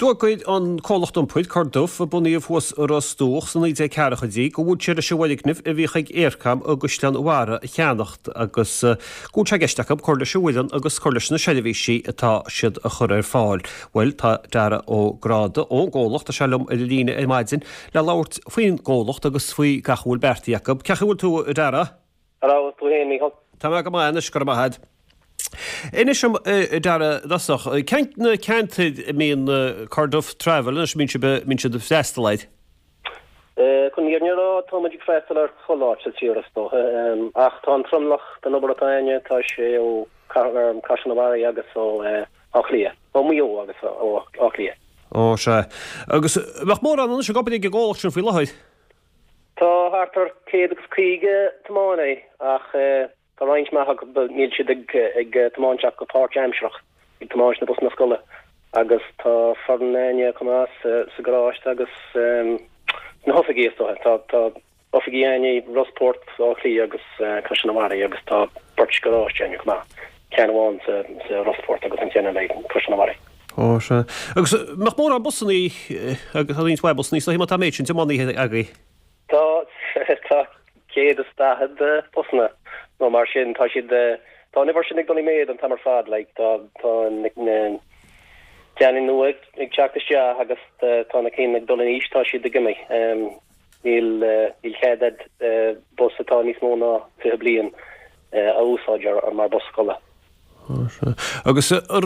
D'fhógair an comhlacht iompair, Corduff, a bunaíodh thuas i Ros Dumhach sna 1940idí, go bhfuil siad leis an bhfoirgneamh a bhíodh ag Eircom i gCaisleán Bharraigh a cheannacht agus go bhfuil sé i gceist acu cur leis an bhfoireann agus cur leis na seirbhísí atá siad a chur ar fáil. Bhuel, tá Dara Ó Gráda ón gcomhlacht, tá sé liom ar an líne ar maidin le labhairt faoin gcomhlacht agus faoi gach a bhfuil beartaithe acu. Cén chaoi a bhfuil tú, a Dara? Hello, tú fhéin, Mícheál? Tá mé go maith anois, go raibh maith agat. Inis dom, a Dara, i dtosach, cén na ceantair a mbíonn Corduff Travel anois, a mbíonn sibh, a mbíonn siad ag freastal air? Chun an fhírinne a rá, tá muid ag freastal ar chuile áit sa tír is dócha, ach tá an tromlach den obair atá againne, tá sé ó Caisleán an Bharraigh agus ó Áth Cliath, ó Mhaigh Eo agus ó Áth Cliath. Ó, sea. Agus bheadh mórán anois ag obair ag an gcomhlacht sin faoi láthair? Tá thart ar 150 tiománaí ach tá roinnt mhaith acu, níl siad ag tiomáint ach go páirtaimsearach, ag tiomáint na busanna scoile agus tá foireann againne chomh maith sa gharáiste agus sna hoifigí is dócha. Tá tá oifigí againne i Ros Port, Áth Cliath agus Caisleán an Bharraigh agus tá beirt garáiste againne chomh maith, ceann amháin sa Rosport agus an ceann eile i gCaisleán an Bharraigh. Ó, sea. Agus mbeadh mórán busannaí, agus tá roinnt mhaith busannaí, is dóichí má tá an méid sin tiománaithe agaibh. Tá, tá 140 busanna nó mar sin, tá siad, tá an uimhir sin ag dul i méad an t-am ar fad, like, tá, tá na ceanna nua ag teacht isteach agus tá na cinn ag dul in aois, tá siad ag imeacht. Níl, níl cead a'd bus atá níos mó ná 20 bliain a úsáid ar, mar bus scoile. Agus ar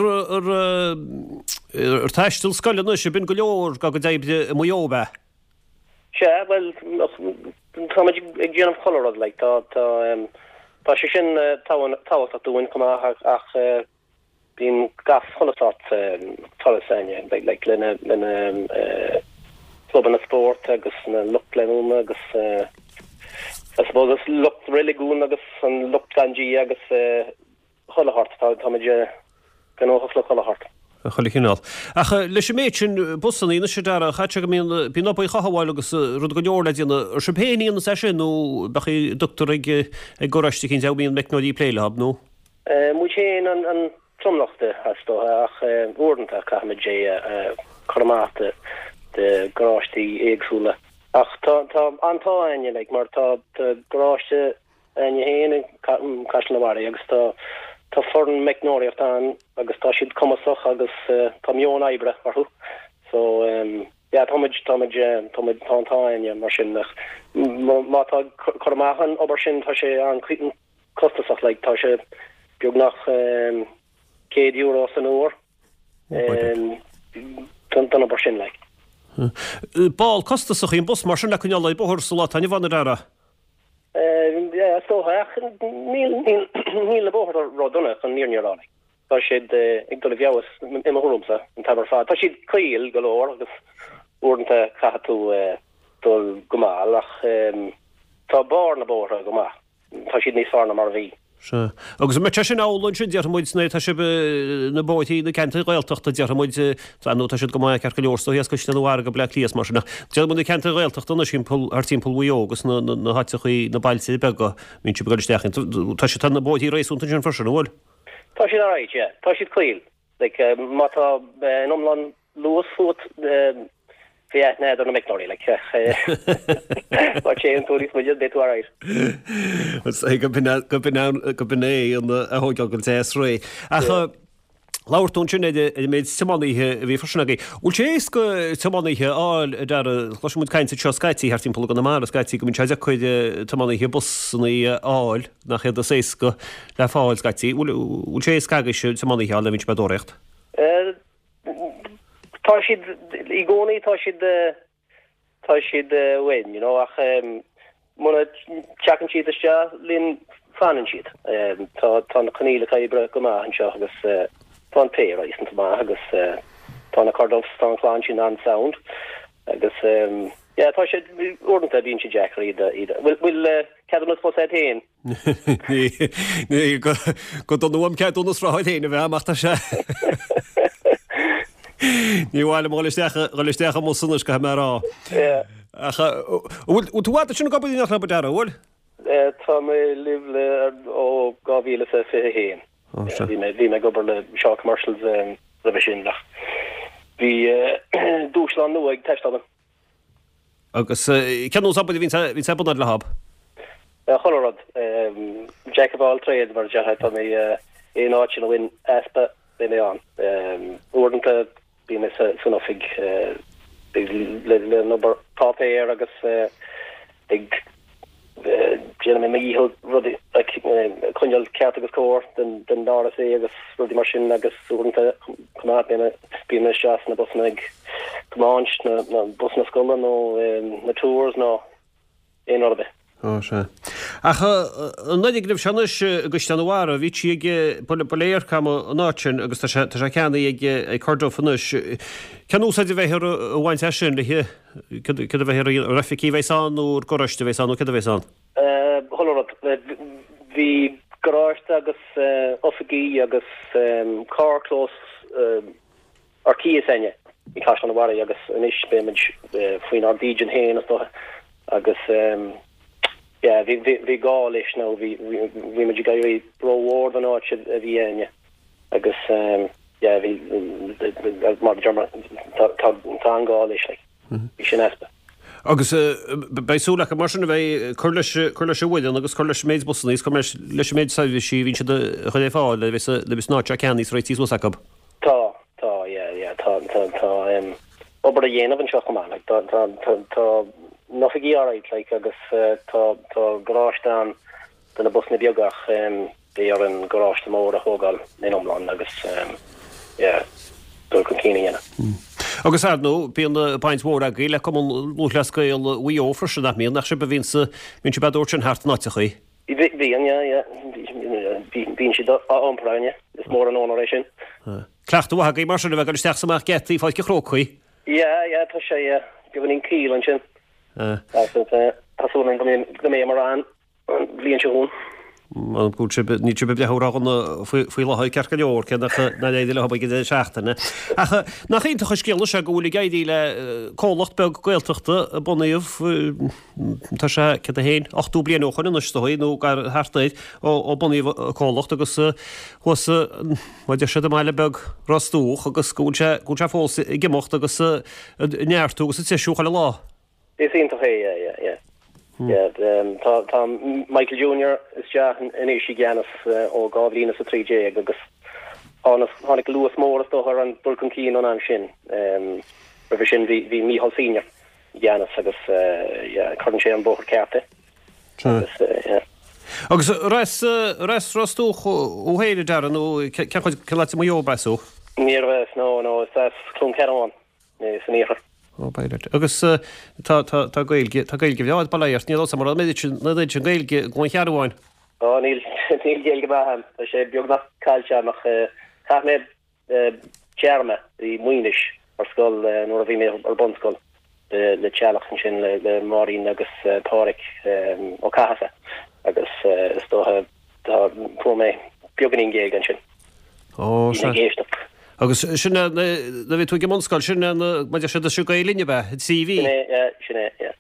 taisteal scoile anois, ab in go leor dá gcuid oibre i Maigh Eo, ab ea? Sea, bhuel, táimid ag déanamh chuile rud, like, tá, tá, tá sé sin tábhachtach dúinn chomh maith ach bíonn gach chuile sórt turas againne, like, le na, le na clubanna spóirt agus na lucht leanúna agus I suppose lucht reiligiún agus an lucht gan Dia agus chuile shórt, táimid gnóthach le chuile shórt. Chuile chineál. Ach leis an méid sin busanna anois a Dara, chaithfeadh sé go mbíonn, bíonn obair chothabháil agus rud go leor le déanamh. Ar sibh féin a dhéanas é sin nó bheadh a dtugtar ag ag garáiste eicínt a mbíonn meicneoirí ag plé leo, nó? Muid féin an tromlach de, is dócha, ach uaireanta caithfimid é a chur amach do garáistí éagsúla. Ach tá an t-ádh againne, like, mar tá garáiste againne féin i gCaisleán an Bharraigh agus tá tá foireann meicneoireachta ann agus tá siad cumasach agus tá meon oibre orthu. So yeah, tá muid tá muid tá muid tá an t-ádh againne mar sin ach má tá cur amach an obair sin tá sé an-costasach like tá sé beagnach €100 san uair don obair sin like. Ball costasach í an bus mar sin le coinneáil ar bóthar sa lá atá inniu ann a Dhara. Is dócha, ach níl níl na bóithre ró-dona chun an fhírinne a rá. Tá siad ag dul i bhfeabhas i mo thuairimse an t-am ar fad. Tá siad caol go leor agus uaireanta caithfidh tú dul go mall ach tá barr na bóithre go maith. Tá siad níos fearr ná mar a bhí. Sea. Agus an mbeadh sé sin amhlaidh ansin, déarfaidh muid, nuair atá sibh na bóithrí na ceantair Ghaeltachta, déarfaidh muid, tá nó tá siad go maith ceart go leor, is dóichí as Caisleán an Bharraigh go Bleá Cliath is mar sin, ach déarfaidh muid na ceantair Ghaeltachta anois thimpeall, thart timpeall Mhaigh Eo agus na, na, na háiteachaí, na bailte beaga a mbíonn sibh ag dul isteach iontu. Tá siad, tá na bóithrí réasúnta ansin freisin, an bhfuil? Tá siad alright, yeah. Tá siad caol. Like, má tá an iomlán luas fút, bheadh aithne agat ar na meicneoirí, like. Má téann tú níos moille, beidh tú alright. Is é go b'in go b'in go b'in é an a thógáil go deas réidh. Ach labhair tú ansin ar an méid tiománaithe a bhí freisin agaibh. Bhfuil sé éasca tiománaithe a fháil a Dara, chloiseann muid caint anseo scaití thart timpeall i gConamara scaití go mbíonn sé deacair tiománaithe busanna a fháil. Nach iad is éasca le fáil scaití. Bhfuil sé éasca agaibhse tiománaithe a fháil nuair a bhíonn sibh ag tóraíocht? Tá siad, i gcónaí tá siad, tá siad uainn, you know, ach muna dteagann siad isteach linn fanann siad. Tá, tá na coinníollacha oibre go maith anseo agus tá an pay réasúnta maith agus tá na Corduffs, tá an chlann sin an-sound agus yeah, tá siad, uaireanta bíonn sé deacair iad a, iad a, bhfuil, bhfuil ceadúnas bus agat féin? Ní, go dona uaim ceadúnas rothair féin a bheith a'm ach tá sé. Ní mhaith liom dhul isteach, dhul isteach i mbus anois, caithfidh mé a rá. Ach bhfuil tú i bhfad ansin ag obair in éineacht leo, a Dhara, bhfuil? Tá mé libh le ó 2021. Bhí mé, bhí mé ag obair le Shaw Commercials roimhe sin ach. Bhí dúshlán nua ag teastáil uainn. Agus cén nós obair a bhíonn ar bun a'd leothab? Chuile rud. Jack of all trades mar a déarfá. Tá mé aon áit ina bhfuil easpa, beidh mé ann. Uaireanta bíonn mé san oifig le an obair páipéir agus ag déanfaidh mé mo dhícheall rudaí a choinneáil ceart agus cóir den RSA agus rudaí mar sin agus uaireanta chomh maith bíonn mé isteach sna busanna ag tiomáint na busanna scoile nó na tours nó aon rud ar bith. Ó, sea. Ach an fhoirgneamh seo anois i gCaisleán an Bharraigh, bhí sí ag, ba le Eircom an áit sin agus tá sé, tá sé ceannaithe ag Corduff anois. Cén úsáid a bheifear a bhaint as sin le Céard a bheifear a dhéanamh? Ar oifigí a bheas ann nó ar garáiste a bheas ann nó céard a bheas ann? Chuile rud. Bhí garáiste agus oifigí agus carrchlós ar cíos a'inne i gCaisleán an Bharraigh agus anois beimid faoinár dídean féin is dócha agus yeah bhí bhí gá leis nó bhí bhí muid ag éirí rómhór don áit a bhí a'inne agus yeah bhí mar a deir mé tá tá tá an-ghá leis like bhí sin easpa. Agus beidh súil acu mar sin a bheith ag cur leis cur leis an bhfoireann agus cur leis an méid busanna agus cur leis leis an méid seirbhísí a bhíonn siad a chur ar fáil nuair a bheas nuair a bheas an áit seo ceannaithe is réitithe suas acu. Tá tá yeah yeah tá tá tá obair a dhéanamh anseo chomh maith like tá tá tá tá na hoifigí alright like agus tá tá garáiste ann do na busanna beaga ach beidh orainn garáiste mór a thógáil ina iomlán agus yeah dul chun cinn a dhéanamh. Agus ar ndóigh bíonn baint mhór agaibh le Cumann Lúthchleas Gael Mhaigh Eo freisin, nach mbíonn? Nach sibh a bhíonn sa, bíonn sibh á dtabhairt sin thart in áiteachaí? Bíonn, yeah, yeah. Bíonn siad á iompar againne. Is mór an onóir é sin. Cleachtadh mhaith agaibh mar sin a bheith ag dul isteach is amach geataí Pháirc an Chrócaigh. Yeah, yeah, tá sé, yeah. Beagáinín caol ansin. Tá súil agam go mbeidh ann. An bhliain seo chugainn. Go bhfuil sibh, níl sibh ag breathnú ródhona faoi láthair ceart go leor, cé nach nár éirigh leo ag an deireadh seachtaine. Ach nach iontach an scéal é go bhfuil ag éirí le comhlacht beag Gaeltachta a bunaíodh, tá sé, céard é féin, 80 bliain ó shoin anois is dóigh, nó gar thart air, ó bunaíodh an comhlacht agus thuas, mar a deir siad i mbaile beag Ros Dumhach agus go bhfuil sé, go bhfuil sé fós ag imeacht agus ag neartú agus ag treisiú chuile lá. Is iontach é, yeah, yeah, yeah. Yeah, tá, tá Michael Junior isteach anois i gceannas ó 2013 agus tháinig luas mór is dócha ar an dul chun cinn ón am sin. Roimhe sin bhí, bhí Micheál Senior i gceannas agus yeah, cuireann sé an bóthar ceart é. Agus, yeah. Agus ar as, ar as Ros Dumhach thú féin, a Dara, nó cén chuid, cén áit i Maigh Eo arb as thú? Níorbh as, no, no, is as Cluain Cearbán. san iarthar. Ó, by right. Agus tá, tá, tá Gaeilge, tá Gaeilge bhreá a'd, bail ó Dhia ort. Níl a fhios a'm an raibh an oiread sin, an oiread sin Gaeilge i gCluain Chearbháin. Ó, níl, níl Gaeilge mhaith a'm. Tá sé beagnach caillte a'm ach chaith mé téarma i Maínis ar scoil nuair a bhí mé ar bunscoil le teaghlach ansin le Máirín agus Páraic Ó Cathasaigh agus is dócha tá, fuair mé beagáinín Gaeilge ansin. Ó, sea. Ag éisteacht. Agus sin é, nuair a bhí tú ag an mbunscoil, sin é, mar a deir siad, is í Gael Linn ab ea, an trí mhí? Sin é, yeah, sin é, yeah.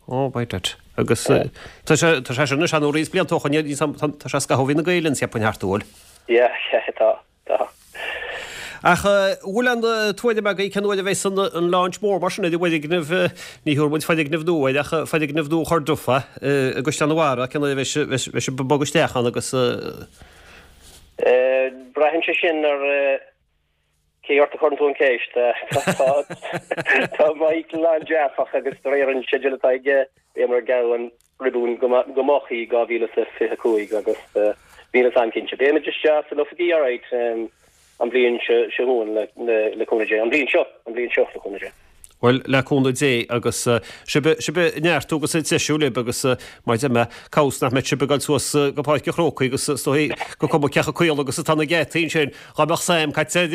Ó, by that. Agus tá sé, tá sé sin anois an roinnt blianta ó shoin, tá sé scaitheamh ó bhí na Gael Linn, cheapfainn, thart, an bhfuil? Yeah, yeah, tá, tá. Ach an bhfuil aon tuairim agaibh cén uair a bheas an launch mór mar sin ar an bhfoirgneamh, ní thabharfaidh muid foirgneamh nua air ach foirgneamh nua Chorduff i gCaisleán an Bharraigh, cén uair a bheas sibh ag bogadh isteach ann agus. Braitheann sé sin ar cé ort a chuireann tú an cheist. Tá Michael an-dearfach agus de réir an sceideal atá aige beimid ag gearradh an riobún go moch i 2025 agus níl fhios a'm cinnte. Beimid isteach san oifigí alright an bhliain seo chugainn le cúnamh Dé. An bhliain seo, an bhliain seo le cúnamh Dé. Bhuel, le cúnamh Dé agus sibh, sibh ag neartú agus ag treisiú libh agus mar a deir mé, cá bhfios nach mbeidh sibh ag dul suas go Páirc an Chrócaigh agus is dóigh gur cuma cé chomh caol agus atá na geataí ansin, dá mbeadh sam caite ar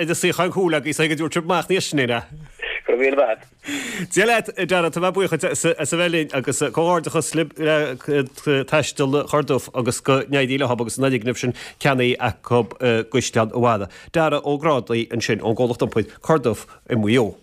an suíochán cúil agaibh is go dtabharfadh sibh amach níos sine. Go raibh míle maith agat. Dia leat, a Dara, tá mé buíoch as a bheith linn agus comhghairdeachas libh le Taisteal Chorduff agus go n-éirí leo agus an fhoirgneamh sin ceannaithe acu i gCaisleán an Bharraigh. Dara Ó Grádaigh ansin ón gcomhlacht iompair Corduff i Maigh Eo.